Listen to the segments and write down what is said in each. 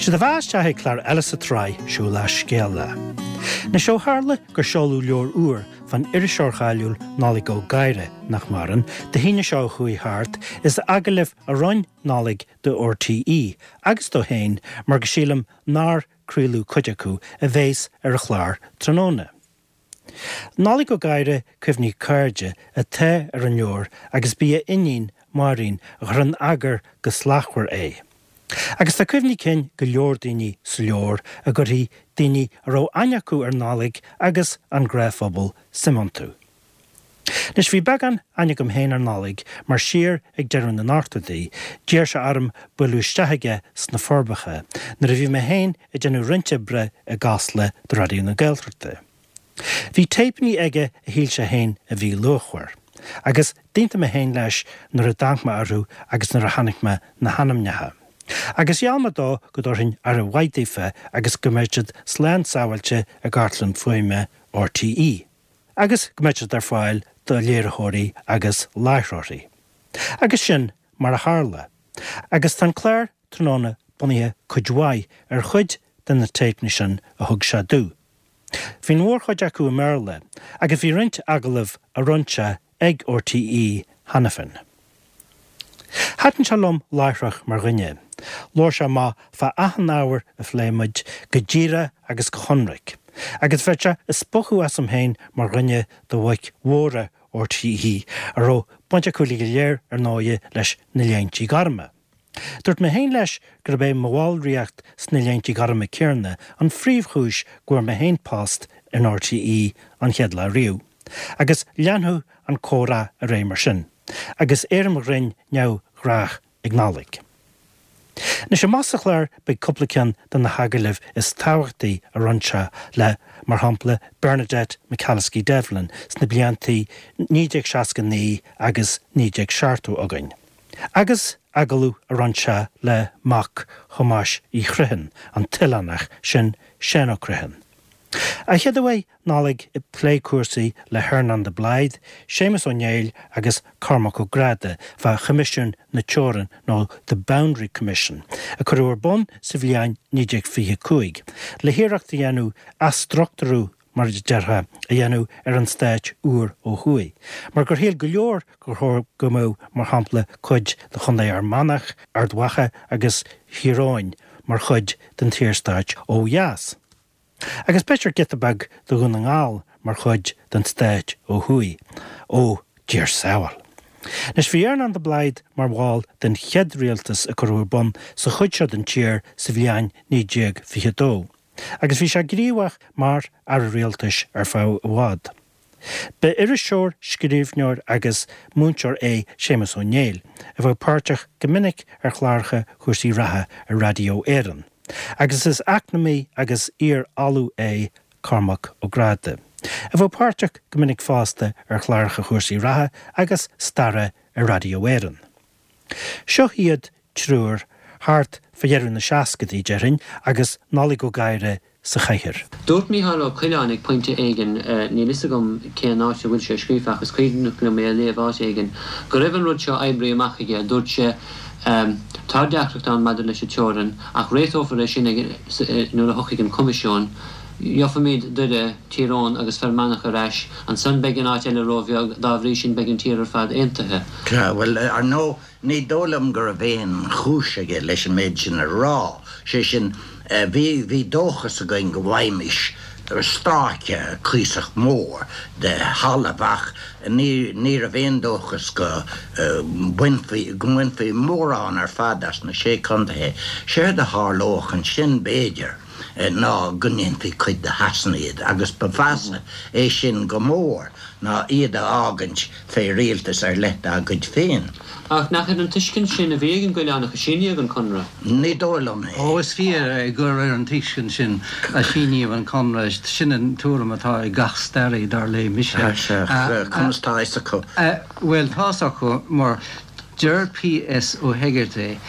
Séard a bheas isteach ag clár eile sa tsraith seo lá Scéala. Anois ó tharla gur seoladh leabhar úr fán iriseoir cháiliúil Nollaig Ó Gadhra, nach maireann, Dé hAoine seo a chuaigh thart, is agallaimh a rinne Nollaig do RTÉ agus dó féin mar go sílim nár craoladh cuid acu, a bhéas ar an chlár tráthnóna. Nollaig Ó Gadhra, Cuimhní Cairde, atá ar an leabhar agus b'í a iníon, Máirín, a chuir in eagar go slachtmhar é. Agus tá cuimhní cinn go leor daoine sa leabhar a gcuirfidh daoine a raibh aithne acu ar Nollaig agus an gnáthphobal suim iontu. Anois bhí beagán aithne agam féin ar Nollaig mar siar ag deireadh na n-ochtóidí d'iarr sé orm bualadh isteach aige sna Forbacha nuair a bhí mé féin ag déanamh roinnt oibre i gCasla do Raidió na Gaeltachta. Bhí téipeanna aige a shíl sé féin a bhí luachmhar, agus d'aontaigh mé féin leis nuair a d'amharc mé orthu agus nuair a chonaic mé na hainmneacha. Agus gheall mé dó go dtabharfainn aire mhaith daofa agus go mbeadh siad slán sábháilte i gcartlann fuaime RTÉ, agus go mbeadh siad ar fáil do léiritheoirí agus láithreoirí. Agus sin mar a tharla. Agus tá an clár tráthnóna bunaithe cuid mhaith ar chuid de na téipeanna sin a thug sé domh. Bhí an mhórchuid acu i mBéarla agus bhí roinnt agallamh a rinne sé ag RTÉ cheana féin. Thaitin sé liom láithreach mar dhuine. Labhair sé amach fá achan ábhar a phléigh muid, go díreach agus go hionraic. Agus bheadh sé ag spochadh asam féin mar dhuine de bhoic mhóra RTÉ, a raibh baint acu uilig go léir ar ndóighe leis na Léintí Gorma. Dúirt mé féin leis gurb é mo bhallraíocht sna Léintí Gorma céanna an phríomhchúis go bhfuair mé féin post in RTÉ an chéad lá riamh. Agus leanfadh an comhrá ar aghaidh mar sin, agus éirim ghrinn neamhghnách ag Nollaig. Anois amach sa chlár beidh cúpla ceann de na hagallaimh is tábhachtaí a rinne sé le, mar shampla, Bernadette McAliskey Devlin sna bliantaí 1969 agus 1970 againn. Agus agallamh a rinne sé le mac Thomáis Uí Chriomhthain, an t-oileánach, sin Seán Ó Criomhthain. Ach chéad a bheidh Nollaig ag plé cúrsaí le hEarnán de Blaghd, Séamus Ó Néill agus Cormac Ó Gráda fá Choimisiún na Teorann nó The Boundary Commission a cuireadh ar bun sa bhliain 1925 le hiarracht a dhéanamh athstruchtúrú mar a déarfá, a dhéanamh ar an stát úr ó thuaidh, mar gur shíl go leor gur chóir go mbeadh, mar shampla, cuid de Chontae Fhear Manach, Ard Mhacha agus Thír Eoghain mar chuid den tSaorstát ó dheas. Agus b'fhéidir giota beag de Dhún na nGall mar chuid den stát ó thuaidh. Ó, Dia ár sábháil! Anois, bhí Earnán de Blaghd mar bhall den chéad rialtas a cuireadh ar bun sa chuid seo den tír sa bhliain 1922. agus bhí sé gníomhach mar Aire Rialtais ar feadh i bhfad. Ba iriseoir, scríbhneoir agus múinteoir é Séamus Ó Néill, a bheadh páirteach go minic ar chláracha Chúrsaí Reatha ar Raidió Éireann, agus is eacnamaí agus iar-ollamh é Cormac Ó Gráda, a bheadh páirteach go minic fosta ar chláracha Chúrsaí Reatha agus Staire ar Raidió Éireann. Seo iad triúr thart fá dheireadh na seascadaí, déarfainn, agus Nollaig Ó Gadhra sa chathaoir. Dúirt Mícheál Ó Coileáin ag pointe éigin, níl fhios agam cén áit a bhfuil sé scríofa ach is cuimhneach liom é a léamh áit éigin, go raibh an rud seo oibrithe amach aige. Dúirt sé, Tá deacracht ann maidir leis an teorainn ach réiteofar é sin nuair a thiocfaidh an Coimisiún. Gheobhaimid Doire, Tír Eoghain agus Fear Manach ar ais, ansan beidh an áit eile ró-bheag, dá bhrí sin beidh an tír ar fad aontaithe. Sea, bhuel, ar ndóigh, ní dóigh liom go raibh aon chúis aige leis an méid sin a rá. Sé sin, bhí, bhí dóchas againn go bhfaighimis stráice cuíosach mór de thalamh ach ní, ní raibh aon dóchas go mbainfí, go mbainfí mórán ar fad as na Sé Contaethe. Séard a tharlódh ansin, b'fhéidir, ná go ndéanfaí cuid de Shasana iad, agus ba mheasa é sin go mór ná iad a fhágaint fé rialtas ar leith dá gcuid féin. Ach nach ar an tuiscint sin a bhí ag an gCoileánach a síníodh an Conradh? Ní dóigh liom é. Ó, is fíor é gur ar an tuiscint sin a síníodh an Conradh. Sin an tuairim atá ag gach staraí, dar léigh mise. Sea, conas tá fhios acu? Bhuel, tá fhios acu mar Deir P.S. Ó hEigeartaigh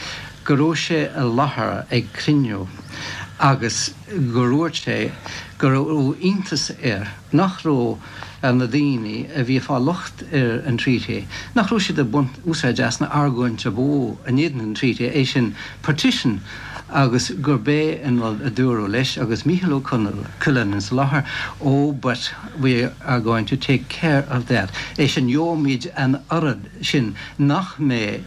go raibh sé i láthair ag cruinniú agus gur dhúirt sé go raibh iontas air nach raibh. Na daoine a bhí ag fáil locht ar an Treaty, nach raibh siad ag baint úsáid as an argóint ab mhó in éadan an Treaty, é sin partition, agus gurb é an rud a dúradh leis agus Mícheál Ó Coileáin insa láthair, oh but we are going to take care of that, é sin gheobhaimid an oiread sin nach mbeidh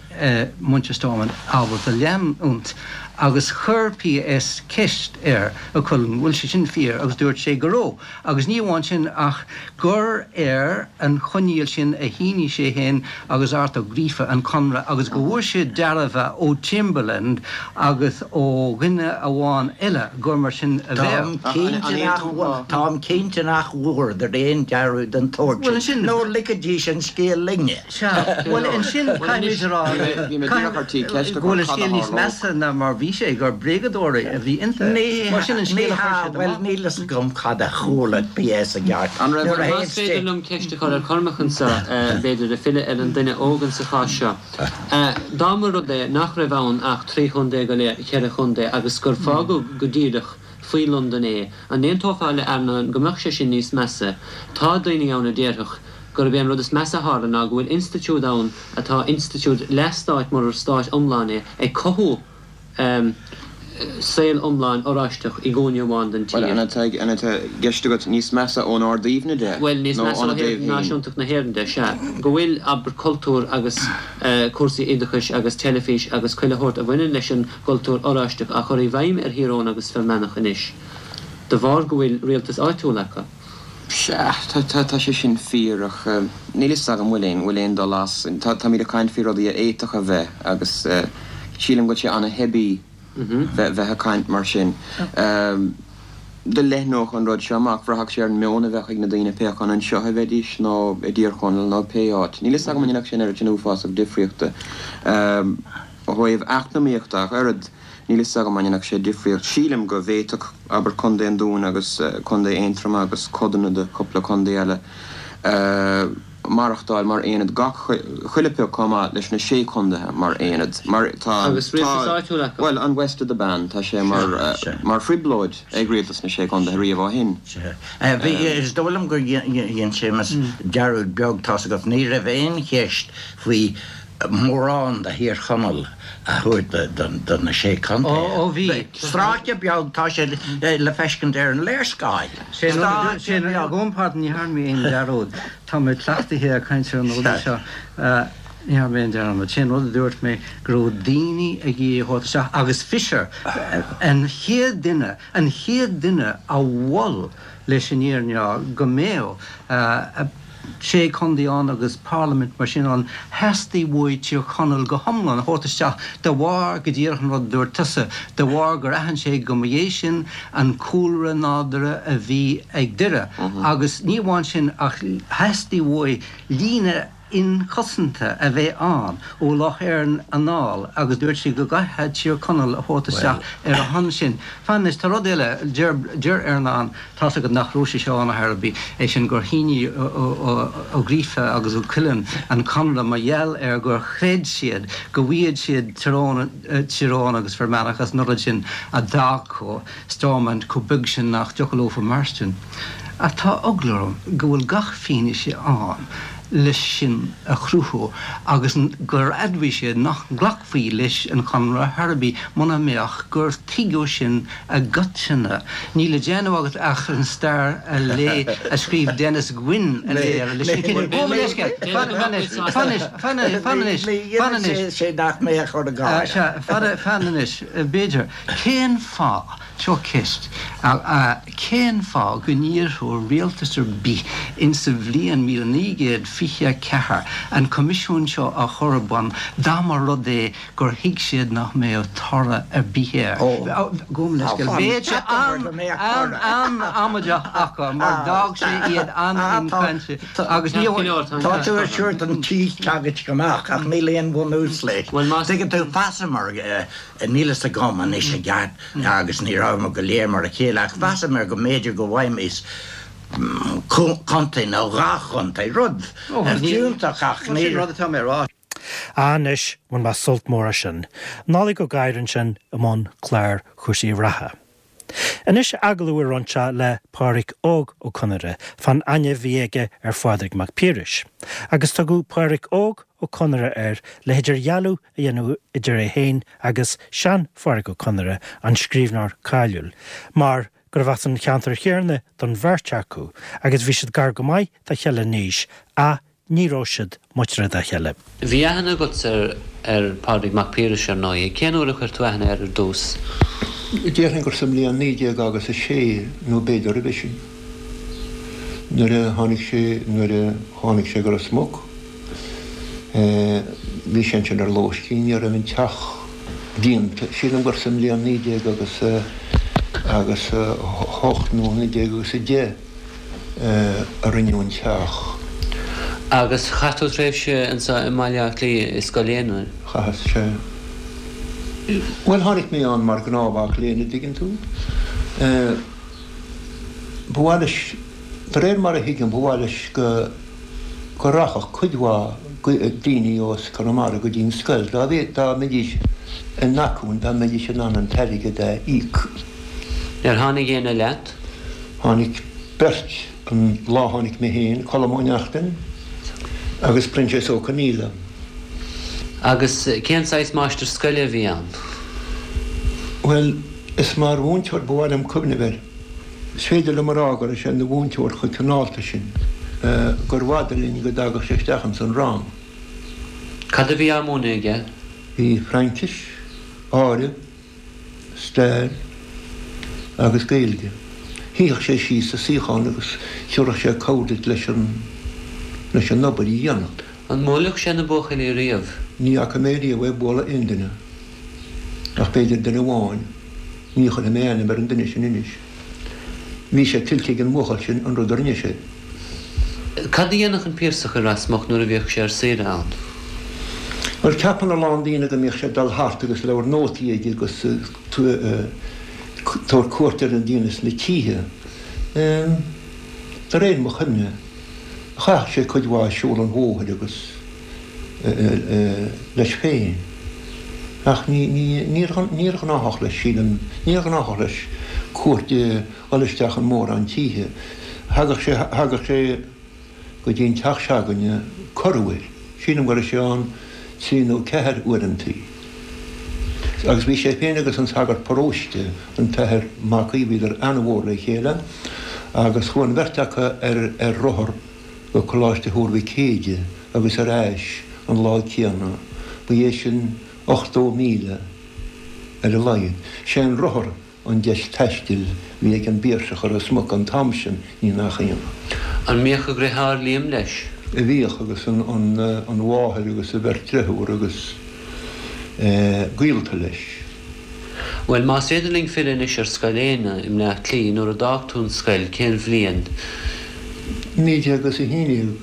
muintir Stormont ábalta leanúint. Agus chuir PS ceist ar Ó Coileáin bhfuil sé sin fíor agus dúirt sé go raibh. Agus ní amháin sin ach gur ar an choinníoll sin a shínigh sé féin agus Art Ó Gríofa an conradh agus go bhfuair siad dearbhú ó Chamberlain agus ó dhuine amháin eile gur mar sin a bheadh. Táim cinnte nach bhfuaireadar aon dearbhú den tsórt sin, nó ligfidís an scéal linne. Sea, bhuel ansin caithfimid a rá go bhfuil an scéal níos measa ná mar bhí sé, gur bréagadóirí a bhí iontu. Mar sin an scéal a chuir siad amach. Bhuel, níl fhios agam cad a chuala PS i gceart. Nuair a Más féidir liom ceist a chur ar Chormac anseo, b'fhéidir, ag filleadh ar an duine óg insa chás seo. Dá mba rud é nach raibh ann ach 3 chontae go leith, cheithre chontae, agus gur fágadh go díreach faoi Londain é, an n-aontófá le Earnán go mbeadh sé sin níos measa? Tá daoine ann a déarfadh gurb é an rud is measa a tharla ná go bhfuil institiúid ann atá institiúid leath-stáit murar stát iomlán é, ag cothú saol iomlán oráisteach i gcúinne amháin den tír. Bhuel, an atá an atá i gceist agat níos measa ón Ard-Aoibhne de Bhuel, níos nó measa ó óna thaobh dtaobh féin? náisiúntacht na hÉireann de, sea. Go bhfuil, abair, cultúr agus cúrsaí oideachais agus teilifís agus chuile shórt a bhaineann leis an gcultúr oráisteach á chur i bhfeidhm ar Thír Eoghain agus Fear Manach anois de bharr go bhfuil rialtas áitiúil acu. Sea, tá, tá, tá sé sin fíor, ach níl fhios agam bhfuil aon, bhfuil aon dul as. Tá, táimid ag caint faoi rudaí a fhéadfadh a bheith agus sílim go bhfuil sé ana-theibí bheith, bheith ag caint mar sin. Dá leathnódh an rud seo amach, bhraithfeadh sé ar an meon a bheadh ag na daoine pé acu anseo a bheidís nó i dTír Chonaill nó pé áit. Níl fhios agam an ndéanfadh sé an oiread sin uafásach difríochta. Ó thaobh eacnamaíochta ach oiread, níl fhios agam an ndéanfadh sé difríocht. Sílim go bhféadfadh, abair, Contae an Dúin agus Contae Aontroma agus codanna de chúpla contae eile maireachtáil mar aonad gach chuile pioc chomh maith leis na sé contaetha mar aonad. Mar tá, Agus rialtas áitiúil acu. bhuel, an West of the Bann, tá sé mar, mar thrioblóid ag rialtas na sé contaetha riamh ó shin. Bhí, is dóigh liom gur dhein Séamus dearúd beag, tá's agat, ní raibh aon cheist faoi mórán de Thír Chonaill a thabhairt do na Sé Chontae. Ó bhí. Stráice beag, tá sé le feiscint ar an léarscáil. Stráice beag. Gabhaim pardon, ní dhearna mé aon dearúd. Tá mé cleachtaithe ag caint ar na rudaí seo. Ní dhearna mé aon dearmad. Sé an rud a dúirt mé go raibh daoine ag iarraidh a thabhairt isteach agus Fisher an chéad duine, an chéad duine a mhol leis an fhírinne go mbeadh sé chontae ann agus parlaimint mar sin ann, theastaigh uaidh Tír Chonaill go hiomlán a thabhairt isteach de bharr, go díreach an rud a dúirt tusa, de bharr gur aithin sé go mba é sin an cúlra nádúrtha a bhí ag Doire agus ní amháin sin ach theastaigh uaidh líne inchosanta a bheith ann ó Loch Erne anall agus dúirt sé go gcaithfeá Tír Chonaill a thabhairt isteach ar a shon sin. Fan anois, tá rud eile, deir, deir Earnán, tá's agat nach raibh sé seo ann ar chor ar bith, é sin gur shínigh Ó Gríofa agus Ó Coileáin an conradh mar gheall ar gur chreid siad go bhfaigheadh siad Tír Eoghain, Tír Eoghain agus Fear Manach as an rud sin a d'fhágfadh Stormont chomh beag sin nach dtiocfadh leofa mairstin. Ach tá eagla orm go bhfuil gach fianaise ann leis sin a chruthú agus gur admhaigh siad nach nglacfaí leis an chonradh ar chor ar bith muna mbeadh gur tuigeadh sin i gcoitinne. Níl le déanamh agat ach an stair a léamh a scríobh Denis Gwynn a léamh leis sin cinnte. Gabh mo leithscéal. Fan anois. Fan anois. Fan anois. Fan anois. Fan anois. Sé nach mbeadh chur i gcás. Sea, fan anois. B'fhéidir. Cén fáth, seo ceist, cén fáth go n-iarrfadh rialtas ar bith insa bhliain 1924 an Coimisiún seo a chur ar bun dá mba rud é gur thuig siad nach mbeadh toradh ar bith air? Gabh mo leithscéal. Bheadh sé an-amaideach acu mar d'fhág sé iad an-inchainte agus ní Tá tú ag tabhairt an tí teagaisc amach ach níl aon bhunús leis. Tuigeann tú, mheasamar Níl fhios agam anois i gceart agus ní rabhamar go léir mar a chéile ach mheasamar go mb'fhéidir go bhfaighimís contae nó dhá chontae, rud fiúntach ach ní. Sin rud atá mé a rá. Anois, bhain mé sult mór as sin. Nollaig Ó Gadhra ansin i mbun clár chúrsaí reatha. Anois agallamh a rinne sé le Pádraic Óg Ó Conaire fán aithne a bhí aige ar Phádraig Mac Piarais. Agus tugadh Pádraic Óg Ó Conaire air le hidirdhealú a dhéanamh idir é féin agus sean-Phádraic Ó Conaire, an scríbhneoir cáiliúil, mar gurbh as an cheantar chéanna don bheirt acu agus bhí siad gar go maith dá chéile in aois ach ní raibh siad muinteartha dá chéile. Bhí aithne agatsa ar Phádraig Mac Piarais, ar ndóigh. Cén uair a chuir tú aithne air ar dtús? Déarfainn gur sa mbliain 19 agus a sé, nó b'fhéidir roimhe sin, nuair a tháinig sé, nuair a tháinig sé go Ros Muc. Bhí sé ansin ar lóistín, ní raibh an teach déanta, sílim gur sa mbliain 19 agus a, agus a hocht nó 19 agus a deich. a rinneadh an teach. Agus chaith tú tréimhse anseo i mBaile Átha Cliath i Scoil Éanna? Chaitheas, sea. Bhuel, tháinig mé ann mar ghnáthmhac léinn, a' dtuigeann tú. Ba mhaith leis, de réir mar a thuigim, ba mhaith leis go, go rachadh cuid mhaith daoine as Conamara go dtí an scoil, dá, dá mbeidís in acmhainn, dá mbeidís in ann an t-airgead a íoc. Ar tháinig éinne leat? Tháinig beirt an lá tháinig mé féin, Colm Ó Neachtain agus Proinsias Ó Conghaile. Agus cén saghas máistir scoile a bhí ann? Bhuel, is mar mhúinteoir ba mhaith liom cuimhneamh air. Is féidir liom a rá go raibh sé ina mhúinteoir chomh cineálta sin gur bhfada linn go dtagadh sé isteach ins an rang. Cad a bhí á múineadh aige? Bhí Fraincis, áireamh, stair agus Gaeilge. Shuífeadh sé síos sa suíochán agus thiúrfadh sé cabhair duit leis an leis an obair a dhéanamh. An mbuailfeadh sé na buachaillí riamh? Ní fhaca mé riamh é ag bualadh aon duine, ach b'fhéidir duine amháin. Ní chuirfidh mé ainm ar an duine sin anois. Bhí sé tuillte ag an mbuachaill sin an rud a rinne sé. Cad a dhéanfadh an Piarsach i Ros Muc nuair a bhíodh sé ar saoire ann? Bhuel, ceapann a lán daoine go mbíodh sé ag dul thart agus leabhar nótaí aige agus tabhairt cuairt ar na daoine sna títhe. De réir mo chuimhne, chaitheadh sé cuid mhaith ag siúl an bhóthair agus leis féin. Ach níor ghnáthach leis, sílim, níor ghnáthach leis cuairt a dhul isteach in mórán títhe. Thagadh sé, thagadh sé go dtí an teach se'againne corruair. Sílim go raibh sé ann trí nó ceathair uaireantaí. Agus bhí sé féin agus an sagart paróiste, an tAthair Mac Aoidh, bhíodar ana-mhór le chéile agus chuaigh an bheirt acu ar ar rothar go Coláiste Thuar Mhic Éide agus ar ais an lá céanna. Ba é sin 80 míle ar a laghad. Sé an rothar an deis taistil a bhí ag an bPiarsach i Ros Muc an t-am sin, ní nach ionadh. An mbíodh a dhriotháir Liam leis? Bhíodh, agus an mháthair agus a bheirt driotháir agus gaolta leis. Bhuel, más féidir linn filleadh anois ar Scoil Éanna i mBleá Cliath, nuair a d'fhág tú an scoil, cén bhliain? 1911.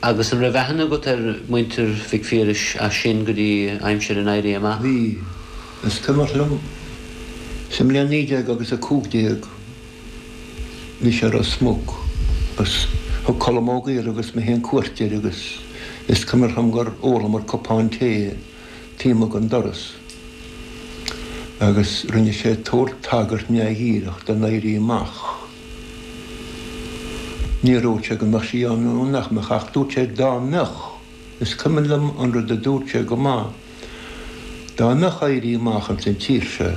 Agus an raibh aithne agat ar mhuintir Mhic Phiarais as sin go dtí aimsir an Éirí Amach? Bhí. Is cuimhin liom, sa mbliain 19 agus 15, bhí sé i Ros Muc agus thug Colm Ó Gaora agus mé féin cuairt air agus is cuimhin liom gur ólamar cupán tae taobh amuigh den doras agus rinne sé tabhairt tagairt neamhdhíreach don Éirí Amach. Níor dhúirt sé go mbeadh sí ann nó nach mbeadh ach dúirt sé dá mbeadh, is cuimhin liom an rud a dúirt sé go maith, dá mbeadh Éirí Amach ins an tír seo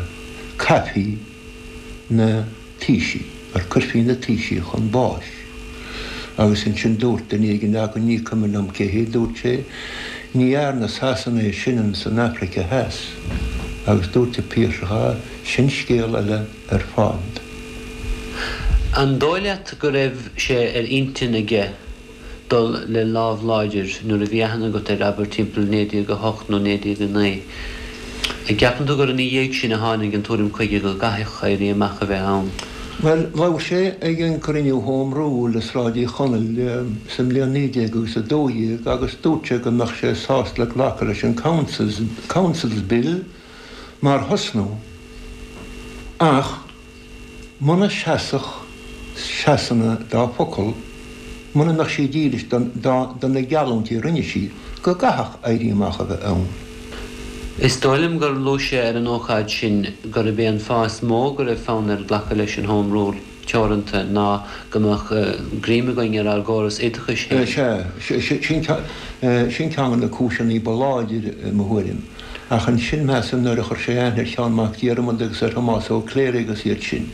caithfí na taoisigh, or cuirfí na taoisigh chun báis. Agus ansin dúirt duine éigin againn, ní cuimhin liom cé hé, dúirt sé, ní dhearna Sasana é sin ins an Afraice Theas. Agus dúirt an Piarsach, ah, sin scéal eile ar fad. An dóigh leat go raibh sé ar intinn aige dul le lámh láidir nuair a bhí aithne agat air, abair timpeall 1908 nó 1909. An gceapann tú gur ina dhiaidh sin a tháinig an tuairim chuige go gcaithfeadh éirí amach a bheith ann? Bhuel, labhair sé ag an gcruinniú Home Rule i Sráid Uí Chonaill sa mbliain 19 agus 12 agus dúirt sé go mbeadh sé sásta le glacadh leis an Councils, Councils Bill mar thosnú ach Muna seasfadh Sasana dá focal, muna mbeadh sí dílis do na geallúintí a rinne sí, go gcaithfeadh éirí amach a bheith ann. Is dóigh liom gur luaigh sé ar an ócáid sin gurb é an fáth is mó go raibh fonn air glacadh leis an Home Rule teoranta ná go mbeadh greim againn ar ár gcóras oideachais féin. Sea, sin ceann de na cúiseanna ba láidre i mo thuairim. Ach ansin, measaim, nuair a chuir sé aithne ar Sheán Mac Diarmada agus ar Thomás Ó Cléirigh agus iad sin,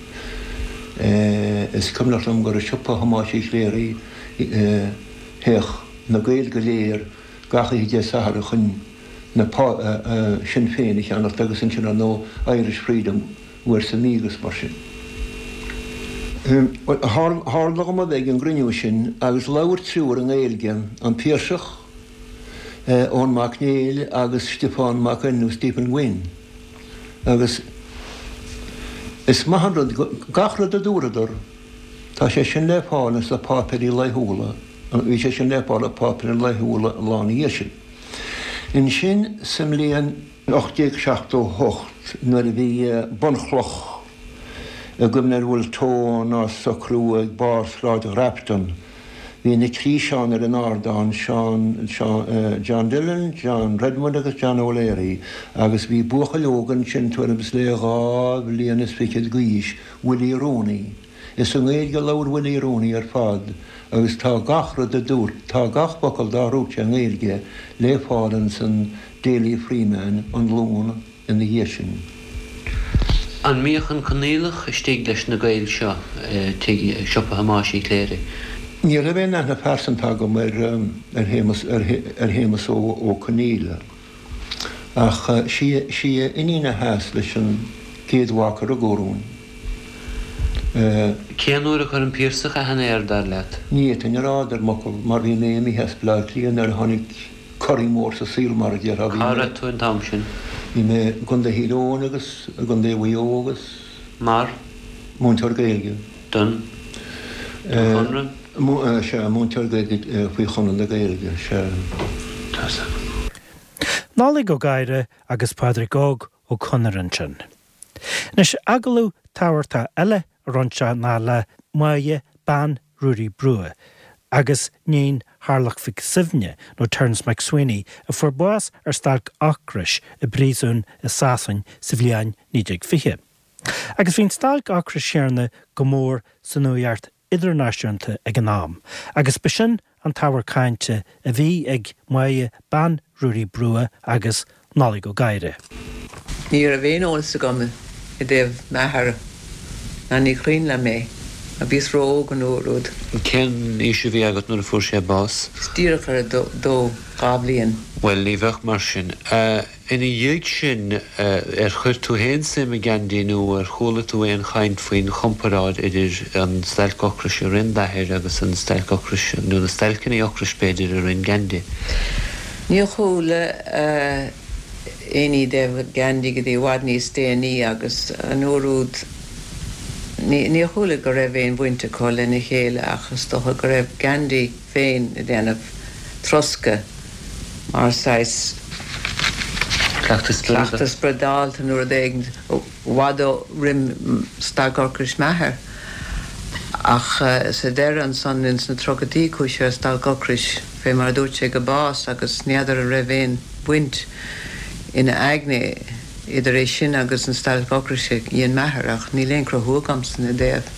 is cuimhneach liom gur i siopa Thomáis Uí Chléirigh a théadh na Gaeil go léir gach oíche Dé Sathairn chun na Sinn Féin a cheannacht agus ansin, ar ndóigh, Irish Freedom uair sa mhí agus mar sin. Tharla dhom a bheith ag an gcruinniú sin agus labhair triúr i nGaeilge, an Piarsach, Eoin Mac Néill agus Stiofán Mac Fhinn nó Stephen Gwynn agus is maith an rud gach rud a dúradar, tá sé sin le fáil ins na páipéirí laethúla, bhí sé sin le fáil i páipéirí laethúla an lá ina dhiaidh sin. Ansin sa mbliain 1878 nuair a bhí bunchloch i gcuimhne ar Wolfe Tone á socrú ag barr Sráid Ghrafton, Bhí na trí Seán ar an ardán, Seán, Seán, John Dillon, John Redmond agus John O'Leary, agus bhí buachaill óg ansin tuairim is le dhá bhliain is fichead d'aois, Willie Rooney. Is i nGaeilge a labhair Willie Rooney ar fad agus tá gach rud a dúirt, tá gach focal dá dhúirt sé i nGaeilge le fáil ins an Daily Freeman an Luan ina dhiaidh sin. An mbíodh an Conaoileach istigh leis na Gaeil seo i tigh siopa Thomáis Uí Chléirigh? Ní raibh aon aithne phearsanta agam ar Shéamus ar Shéamus Ó Conaola ach sí sí a iníon a sheas leis an gcéad mhac a rugadh orainn. Cén uair a chuir an Piarsach aithne air, dar leat? Ní fhéadfainn a rá, a deir m'fhocal, mar bhí mé imithe as Bleá Cliath nuair a tháinig corraí mór sa saol, mar a déarfá. Bhí Cá mé, raibh tú an t-am sin? Bhí mé i gContae Thír Eoghain agus i gContae Mhaigh Eo agus. Mar? Múinteoir Gaeilge. Don? Don Chonradh? Sea, múinteoir Gaeilge faoi Chonradh na Gaeilge, sea. Tá 's agam. Nollaig Ó Gadhra agus Pádraig Óg Ó Conaire ansin. Anois, agallamh tábhachtach eile a rinne sé ná le Máire bean Ruairí Brugha agus níon Tharlach Mhic Suibhne, nó Terence MacSwiney, a fuair bás ar stailc ocrais i bpríosún i Sasain sa bhliain 1920. Agus bhí an stailc ocrais chéanna go mór sa nuacht idirnáisiúnta ag an am, agus b'shin an t-ábhar cainte a bhí ag Máire bean Ruairí Brugha agus Nollaig Ó Gadhra. Ní raibh aon eolas agam i dtaobh m'athar ná ní cuimhin liom é mar bhíos ró-óg an uair úd. Cén aois a bhí agat nuair a fuair sé bás? Bhíos díreach ar a dó, 2 bhliain. Bhuel, ní bheadh mar sin. Ina dhiaidh sin, ar chuir tú féin suim i Gandhi nó ar chuala tú aon chaint faoin chomparáid idir an stailc ocrais a rinne d'athair agus an stailc ocrais, nó na stailceanna ocrais b'fhéidir, a rinne Gandhi? Níor chuala aon ní i dtaobh Gandhi go dtí i bhfad níos déanaí agus an uair úd níor chuala go raibh aon bhaint acu lena chéile ach is dócha go raibh Gandhi féin ag déanamh troscadh mar saghas cleachtadh spioradálta nó rud éigin i bhfad roim stailc ocrais m'athar. Ach sa deireadh ansan ins na tríochaidí chuaigh sé ar stailc ocrais fé mar a dúirt sé go bás agus n'fheadar an raibh aon bhaint ina aigne idir é sin agus an stailc ocrais a dhein m'athair ach níl aon chruthú agamsa ina dtaobh.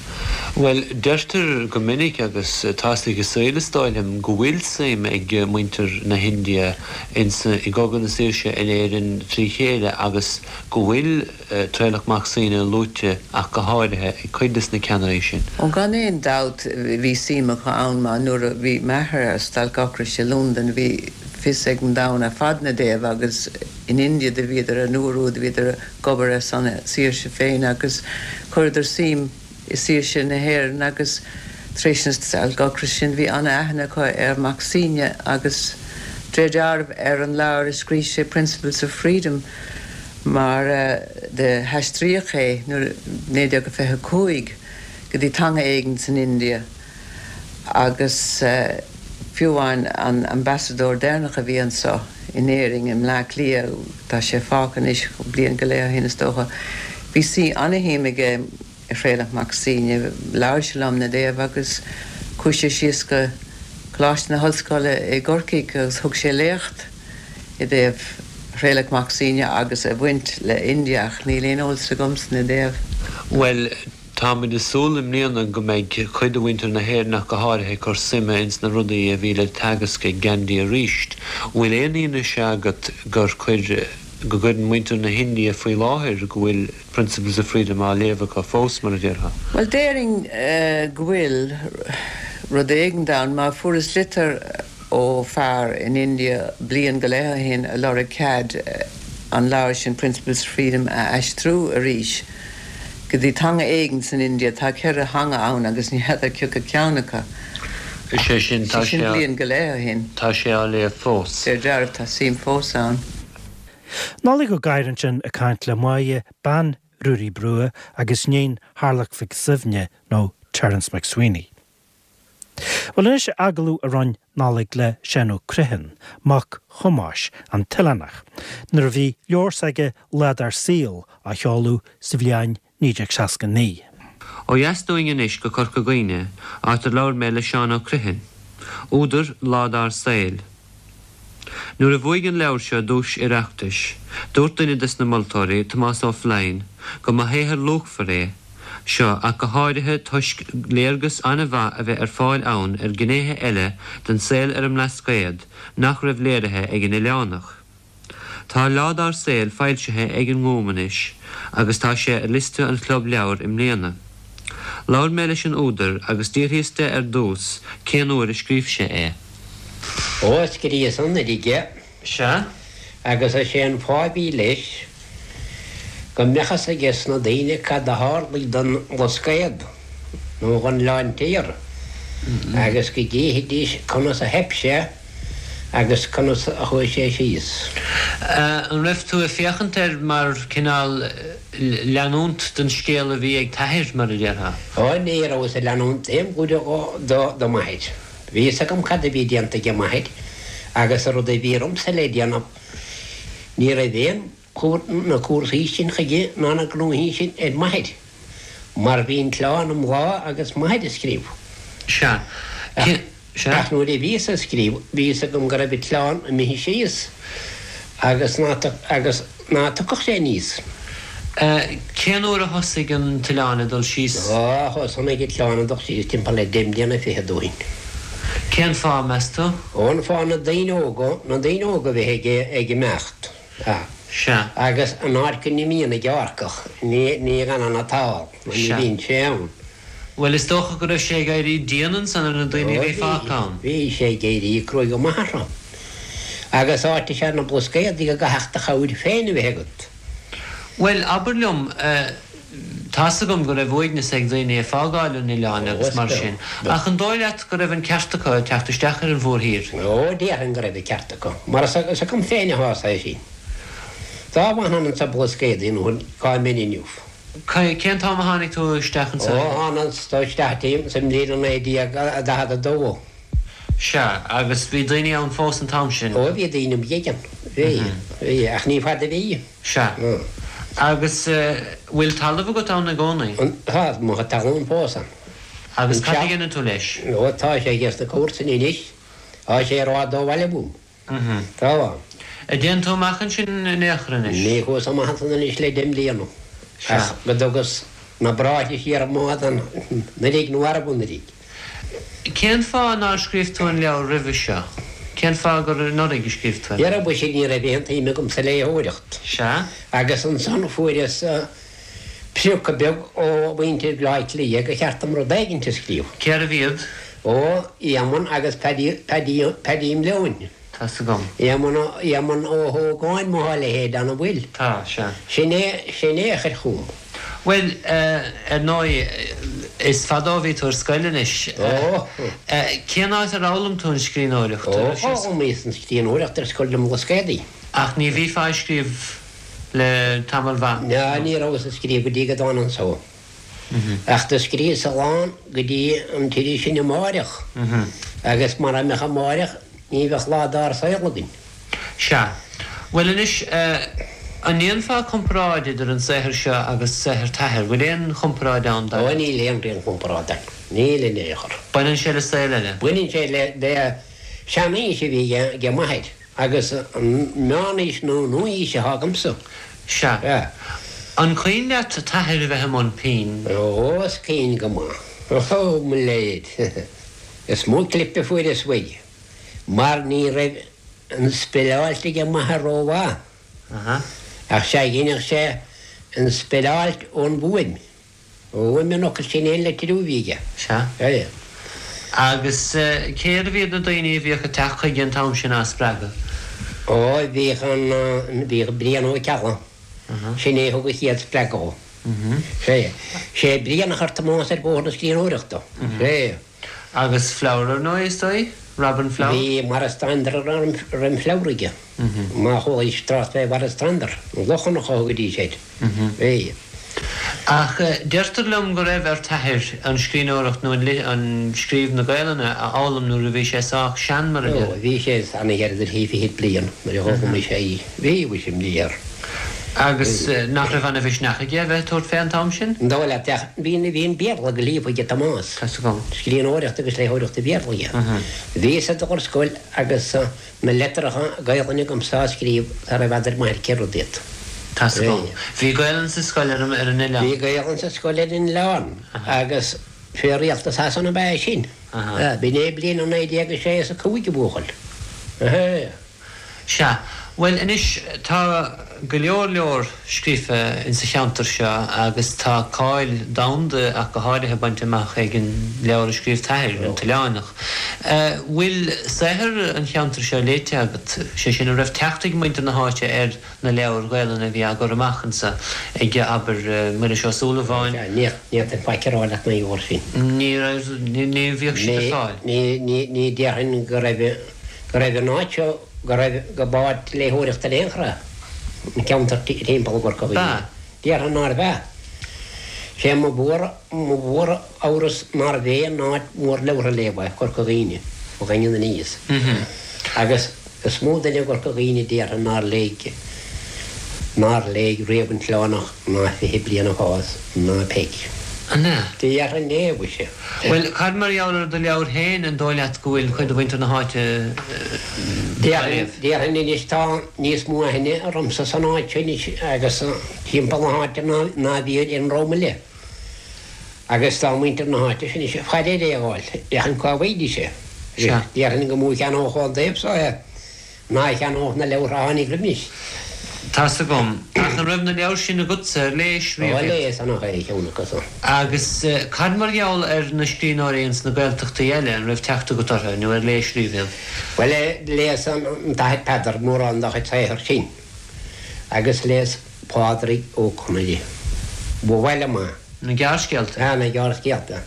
Bhuel, deirtear go minic, agus tá's ag an saol is dóigh liom, go bhfuil suim ag muintir na hIndia ins i gCogadh na Saoirse in Éirinn trí chéile agus go bhfuil Traolach Mac Suibhne luaite ach go háirithe ag cuid des na ceannairí sin. Ó gan aon dabht bhí suim acu ann mar nuair a bhí m'athair ar stailc ocrais i Londain bhí fios ag an domhan ar fad 'na dtaobh agus in India do bhíodar an uair úd bhíodar ag obair ar son a saoirse féin agus chuireadar suim i saoirse na hÉireann agus tar éis na stailc ocrais sin bhí ana-aithne acu ar Mac Suibhne agus de réir dealraimh ar an leabhar a scrígh sé Principles of Freedom mar do haistríodh é nuair 1925 go dtí teanga éigin san India. Agus fiú amháin an ambasadóir deireanach a bhí anso in Éirinn, i mBleá Cliath, tá sé fágtha anois, bliain go leith ó shin is dócha, bhí suí ana-shuim aige i Thraolach Mac Suibhne, labhair sé liom 'na dtaobh agus chuaigh sé síos go Coláiste na hOllscoile i gCorcaigh agus thug sé léacht i dtaobh. Thraolach Mac Suibhne agus a bhaint le India ach níl aon eolas agamsa 'na dtaobh. Bhuel, táimid ag súil i mbliana go mbeidh cuid de mhuintir na hÉireann ach go háirithe ag cur suime ins na rudaí a bhí le teagasc ag Gandhi aríst. Bhfuil aon fhianaise agat gur chuir, go gcuireann muintir na hIndia faoi láthair go bhfuil Principles of Freedom á léamh acu fós, mar a déarfá? Bhuel, déarfainn go bhfuil rud éigint ann mar fuaireas litir ó fear in India bliain go leith ó shin a lorg cead an leabhar sin Principles of Freedom a aistriú arís go dtí teanga éigin san India. Tá cheithre theanga ann agus ní fheadar cioca ceann acu. Is é sin, tá sé sin bliain go leith ó shin. Tá sé á léamh fós. Deir dealramh tá suim fós ann. Nollaig Ó Gadhra ansin ag caint le Máire, bean Ruairí Brugha agus níon Tharlach Mhic Suibhne nó Terence MacSwiney. Bhuel anois agallamh a rinne Nollaig le Seán Ó Criomhthain, mac Thomáis, an tOileánach, nuair a bhí leabhar s'aige Lá Dár Saol á sheoladh sa bhliain 1969. Ó dheas dúinn anois go Corca Dhuibhne, áit ar labhair mé le Seán Ó Criomhthain, údar Lá Dár Saol. Nuair a bhuaigh an leabhar seo duais Oireachtais, dúirt duine des na moltóirí, Tomás Ó Floinn, go mba shaothar luachmhar é seo ach go háirithe toisc léargas an-mhaith a bheith ar fáil ann ar ghnéithe eile den saol ar an mBlascaod nach raibh léirithe ag an Oileánach. Tá Lá Dár Saol foilsithe ag an nGúm anois agus tá sé ar liosta an Chlub Leabhar i mbliana. Labhair mé leis an údar agus d'fhiafraíos de ar dtús cén uair a scríobh sé é. Ó, scríobhas anuraidh é. Sea. Agus is é an fáth a bhí leis go mbeadh fhios ages na daoine cad a tharlaigh don Bhlascaod nó dhon Oileán Tiar agus go gcífidís conas a theip sé agus conas a chuaigh sé síos. An raibh tú ag féachaint air mar cineál leanúint den scéal a bhí ag t'athair, mar a déarfá? Ó, ní rabhas ag leanúint aon chuid do m'athair. Bhí fhios agam cad a bhí déanta age m'athair agus an rud a bhí ormsa le déanamh. Ní raibh aon na cúrsaí sin chuige ná na gnóthaí sin ar m'athair mar bhí an t-oileán i mbláth agus m'athair ag scríobh. Sea. Sea. Ach nuair a bhíos ag scríobh bhí fhios agam go raibh an t-oileán imithe síos agus ná agus ná tiocfadh sé aníos. Cén uair a thosaigh an t-oileán ag dul síos? Ó, thosnaigh an t-oileán ag dul síos timpeall le deich mbliana fichead ó shin. Cén fáth, meas tú? Ó, an fáth na daoine óga, na daoine óga a bheith ag, ag imeacht. Sea. Agus an áit go n-imíonn an gearrcach, ní, ní fhanann an t-ál, nó ní bhíonn sé ann. Bhuel, is dócha go raibh sé ag éirí dian ansan ar na daoine a bhí fágtha ann. Bhí sé ag éirí cruaidh go maith orthu. Agus áit is ea na Blascaodaí go gcaithfeadh do chabhair féin a bheith agat. Bhuel, abair liom, tá's agam go raibh uaigneas ag daoine ag fágáil an oileáin agus mar sin, ach an dóigh leat go raibh an ceart acu teacht isteach ar an mhórthír? Ó, déarfainn go raibh an ceart acu, mar is agam féin a thosaigh é sin. Dá bhfanfainn insa Blascaodaí nó cá mbeinn inniu. Cén t-am a tháinig tú isteach anso? Ó, thánas isteach sa mbliain 1942. Sea, agus bhí daoine ann fós an t-am sin? Ó, bhí daoine beaga ann. Bhí, bhí, ach ní fada a bhí. Sea. Agus bhfuil talamh agat ann i gcónaí? Tá, mo chuid talún fós ann. Agus cad a dhéanann tú leis? Ó, tá sé ages na comharsana anois. Tá sé rófhada ó bhaile uaim. Tá. An dtéann tú amach ansin in aon chor anois? Ní chuas amach ansan anois le deich mbliana. Ach go dtugas na bráithre siar i mbád anuraidh nó arb anuraidh. Cén fáth nár scríobh tú an leabhar roimhe seo? Cén fáth gur anuraidh a scríobh tú é? Dhera mhuise ní raibh aon tsuim agam sa léitheoireacht. Sea. Agus ansan fuaireas priocadh beag ó mhuintir Bhleá Cliath gur cheart dom rud éigint a scríobh. Cérbh iad? Ó, Éamonn agus Paddy, Paddy, Paddy Mleoin. Tá's agam. Éamonn Ó, Éamonn Ó hÓgáin má tá a leithéid ann, an bhfuil? Tá, sea. Sin é, sin é a chuir chugam. Bhuel, ar ndóigh, is fada ó bhí tú ar scoil anois. Ó. Cén áit ar fhoghlaim tú an scríbhneoireacht? Ó, d'fhoghlaimíos an scríbhneoireacht ar scoil na mBlascaodaí. Ach ní bhífeá ag scríobh le tamall mhaith? Ná, ní rabhas ag scríobh go dtí go dtána anso. Ach do scríobhas a lán go dtí an t-iris sin Amáireach, agus mara mbeadh Amáireach ní bheadh Lá Dár Saol againn. Sea. Bhuel anois, an ndéanfá comparáid idir an saothar seo agus saothar t'athar? Bhfuil aon chomparáid ann, dar leat? Ó, níl aon aon chomparáid ann. Níl in aon chor. Baineann sé le saol eile? Baineann sé le seanaois a bhí age m'athair. Agus an meánaois nó an nua-aois atá agamsa. Sea. An cuimhin leat t'athair a bheith i mbun pinn? Ó, is cuimhin go maith. Ó, mo léir. Is mó clip a fuaireas uaidh, mar ní raibh an speileáilt aige m'athair rómhaith. Ach sea, dheineadh sé an speileáilt ón bhfuaim. Ó fhuaim an fhocail sin aon litriú a bhí aige. Sea. Sea. Agus cérbh iad na daoine a bhíodh ag teacht chuige an t-am sin á spreagadh? Ó, bhíodh an, bhíodh Brian Ó Ceallaigh. Sin é a thug an chéad spreagadh dhó. Sea. Sé Brian a chuir Tomás ar bhóthar na scríbhneoireachta. Sea. Agus Flower ar ndóigh, is dóigh? Robin Flower? Bhí Maurice Stander roim Flower aige. Má chualaís trácht fé Mhaurice Stander, an Lochlannach a thugaidís air. Bhí. Ach deirtear liom go raibh ar t'athair an scríbhneoireacht nó an scríobh na Gaelainne a fhoghlaim nuair a bhí sé sách sean, mar a Ó, bhí sé ana-ghearr idir thrí fichid bliain nuair a d'fhoghlaimigh sé í. Bhí, bhí sé imní air. Agus nach raibh ana-mhisneach aige a bheith ag tabhairt fé an t-am sin? An dóigh leat, ach bhí, bhí an Béarla go líofa aige Tomás. Tá's agam. Scríbhneoireacht agus léitheoireacht Bhéarla aige. Bhíos ag dul ar scoil agus na litreacha Gaelainne agamsa á scríobh sara bhfeadair m'athair cé rud iad. Tá's agam. Bhí Gaelainn sa scoil ar an oileán? Bhí Gaelainn sa scoil ar an oileán agus fé rialtas Shasana ab ea é sin. B'in é bliain a 1906 is a 5 a bhuachaill. Sea. Bhuel, anois, tá go leor leor scríofa insa cheantar seo agus tá cáil domhanda ach go háirithe bainte amach ag an leabhar a scríobh t'athair, An tOileánach. Bhfuil saothar an cheantair seo léite agat? Sé sin, an raibh teacht ag muintir na háite ar na leabhair Ghaelainne a bhí á gcur amach anso ag, abair, Muiris Ó Súilleabháin? Sea, ní fhéadfainn faic a rá leat mar gheall air sin. Ní raibh, ní bhíodh siad ar fáil. Ní, ní, ní déarfainn go raibh. go raibh an áit seo, go raibh, go b'áit léitheoireachta in aon chor é an ceantar timpeall i gCorca Dhuibhne. Déarfainn nárbh ea. Sé mo mhór, mo mhór amhras nárbh aon áit mhór leabhartha a léamh é Corca Dhuibhne, ó Dhaingean aníos. Agus is mó duine i gCorca Dhuibhne déarfainn nár léigh, nár léigh riamh An tOileánach ná Fiche Bliain ag Fás ná Peig. An ea? Déarfainn é, mhuise. Bhuel, cad mar gheall ar do leabhair féin, an dóigh leat go bhfuil cuid de mhuintir na háite á léamh? Déarfainn anois tá níos mó aithne ormsa san áit seo anois agus timpeall na háite ná a bhí ar an ndream eile. Agus tá muintir na háite seo anois ag faire ar é a fháil, féachaint cá bhfaighidís é. Déarfainn gur mó a cheannódh ón dtaobh so é. Ná a cheannódh na leabhartha a tháinig roimis. Tá's agam. Ach an raibh na leabhair sin agatsa? Ar léis riamh iad? Ó, léas ana cheann acu san. Agus cad mar gheall ar na scríbhneoirí ins na Gaeltachtaí eile, an raibh teacht agat orthu, nó ar léis riamh iad? Bhuel, léas an tAthair Peadar mórán dá chuid saothair sin, agus léas Pádraig Ó Conaire. Ba mhaith liom é. Na gearrscéalta? Sea, na gearrscéalta.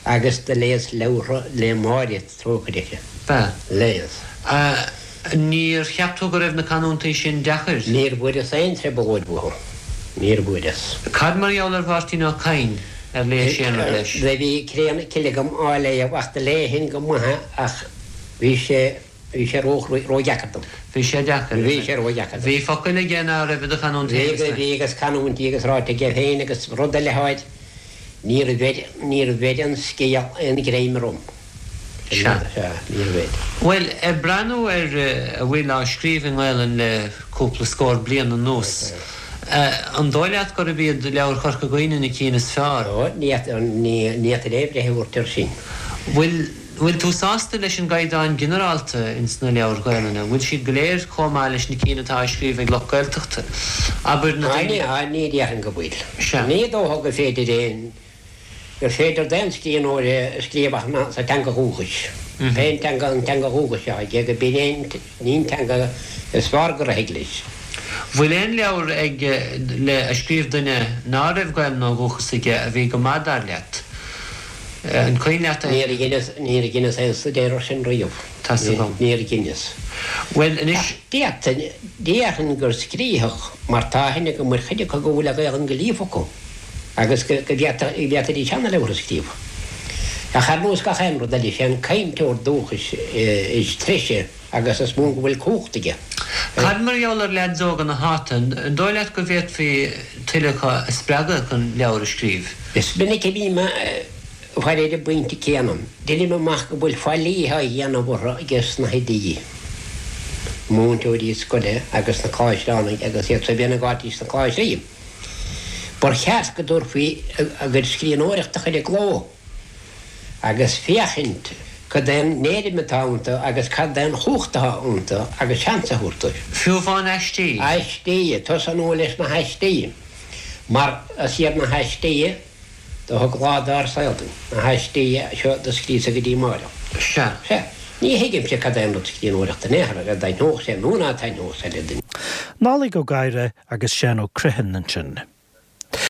Agus do léas leabhartha le Máire. Trócaire. Ba. Léas. A, Níor cheap tú go raibh na canúintí sin deacair? Níor bhfuaireas aon trioblóid uathu. Níor bhfuaireas. Cad mar gheall ar Mháirtín Ó Cadhain, ar léis aon rud leis? Do bhí Cré na Cille agam á léamh ach do léifinn go maith é ach bhí sé, bhí sé ró, ródheacair dom. Bhí sé deacair. Bhí sé ródheacair dom. Bhí focail aige ná raibh i do chanúint féin, is. Bhí, bhí agus canúintí agus ráite aige féin agus rud eile air, níor bheir, níor bheir an scéal aon ghreim orm. Sea. Bhuel, ag breathnú ar a bhfuil á scríobh i nGaelainn le cúpla scór bliain anuas, an dóigh leat gurb iad leabhair Chorca Dhuibhne na cinn is fearr? Ó, ní fhéadfainn aon bhreith a thabhairt air sin. Bhfuil, bhfuil tú sásta leis an gcaighdeán ginearálta ins na leabhair Ghaelainne? Bhfuil siad go léir chomh maith leis na cinn atá á scríobh ag lucht Gaeltachta? Abair na daoine. Á, ní déarfainn go bhfuil. Sea. Ní dócha gur féidir aon. gur féidir d'aon scríbhneoir scríobh ach sa teanga dhúchais. Pé an teanga an teanga dhúchais atá aige, go b'in é an teanga is fearr gur thig leis. Bhfuil aon leabhar ag le a scríobh duine ná raibh Gaelainn ó dhúchas aige a bhí go maith dar leat? An cuimhin leat aon? Níor dheineas, níor dheineas aon stuidéar ar sin riamh. Tá's agam. Níor dheineas. Bhuel, anois. Ach d'fhéadfainn, déarfainn gur scríobhadh, mar tá aithne agam ar chuid acu go bhfuil an Ghaelainn go líofa acu. agus go bhféadfaidís ana-leabhar a scríobh. Ach ar nós gach aon rud eile, is é an cainteoir dúchais is treise agus is mó go bhfuil cumhacht aige. Cad mar gheall ar leaids óga na háite, an dóigh leat go bhféadfaí tuilleadh acu a spreagadh chun leabhar a scríobh? Is minic a bhím ag faire ar an bpointe céanna. Deinim amach go bhfuil faillí á dhéanamh orthu ages na hoidí. Múinteoirí scoile agus na Cláistreánaigh agus iad so a bhíonn ag áití sna Cláistrí. Ba cheart go dtabharfaí a gcuid scríbhneoireachta a chur i gcló agus féachaint cad é an éirim atá iontu agus cad é an chumhacht atá iontu agus seans a thabhairt dóibh. Fiú amháin aistí. Aistí, tosnú leis na haistí, mar is iad na haistí do thug lá dár saol dúinn, na haistí seo do scríosadh go dtí amáireach. Sea. Sea. Ní thuigimse cad é an rud scríbhneoireachta in aon chor, an dtaitneodh sé nó ná taitneodh sé le duine. Nollaig Ó Gadhra agus Seán Ó Criomhthain ansin.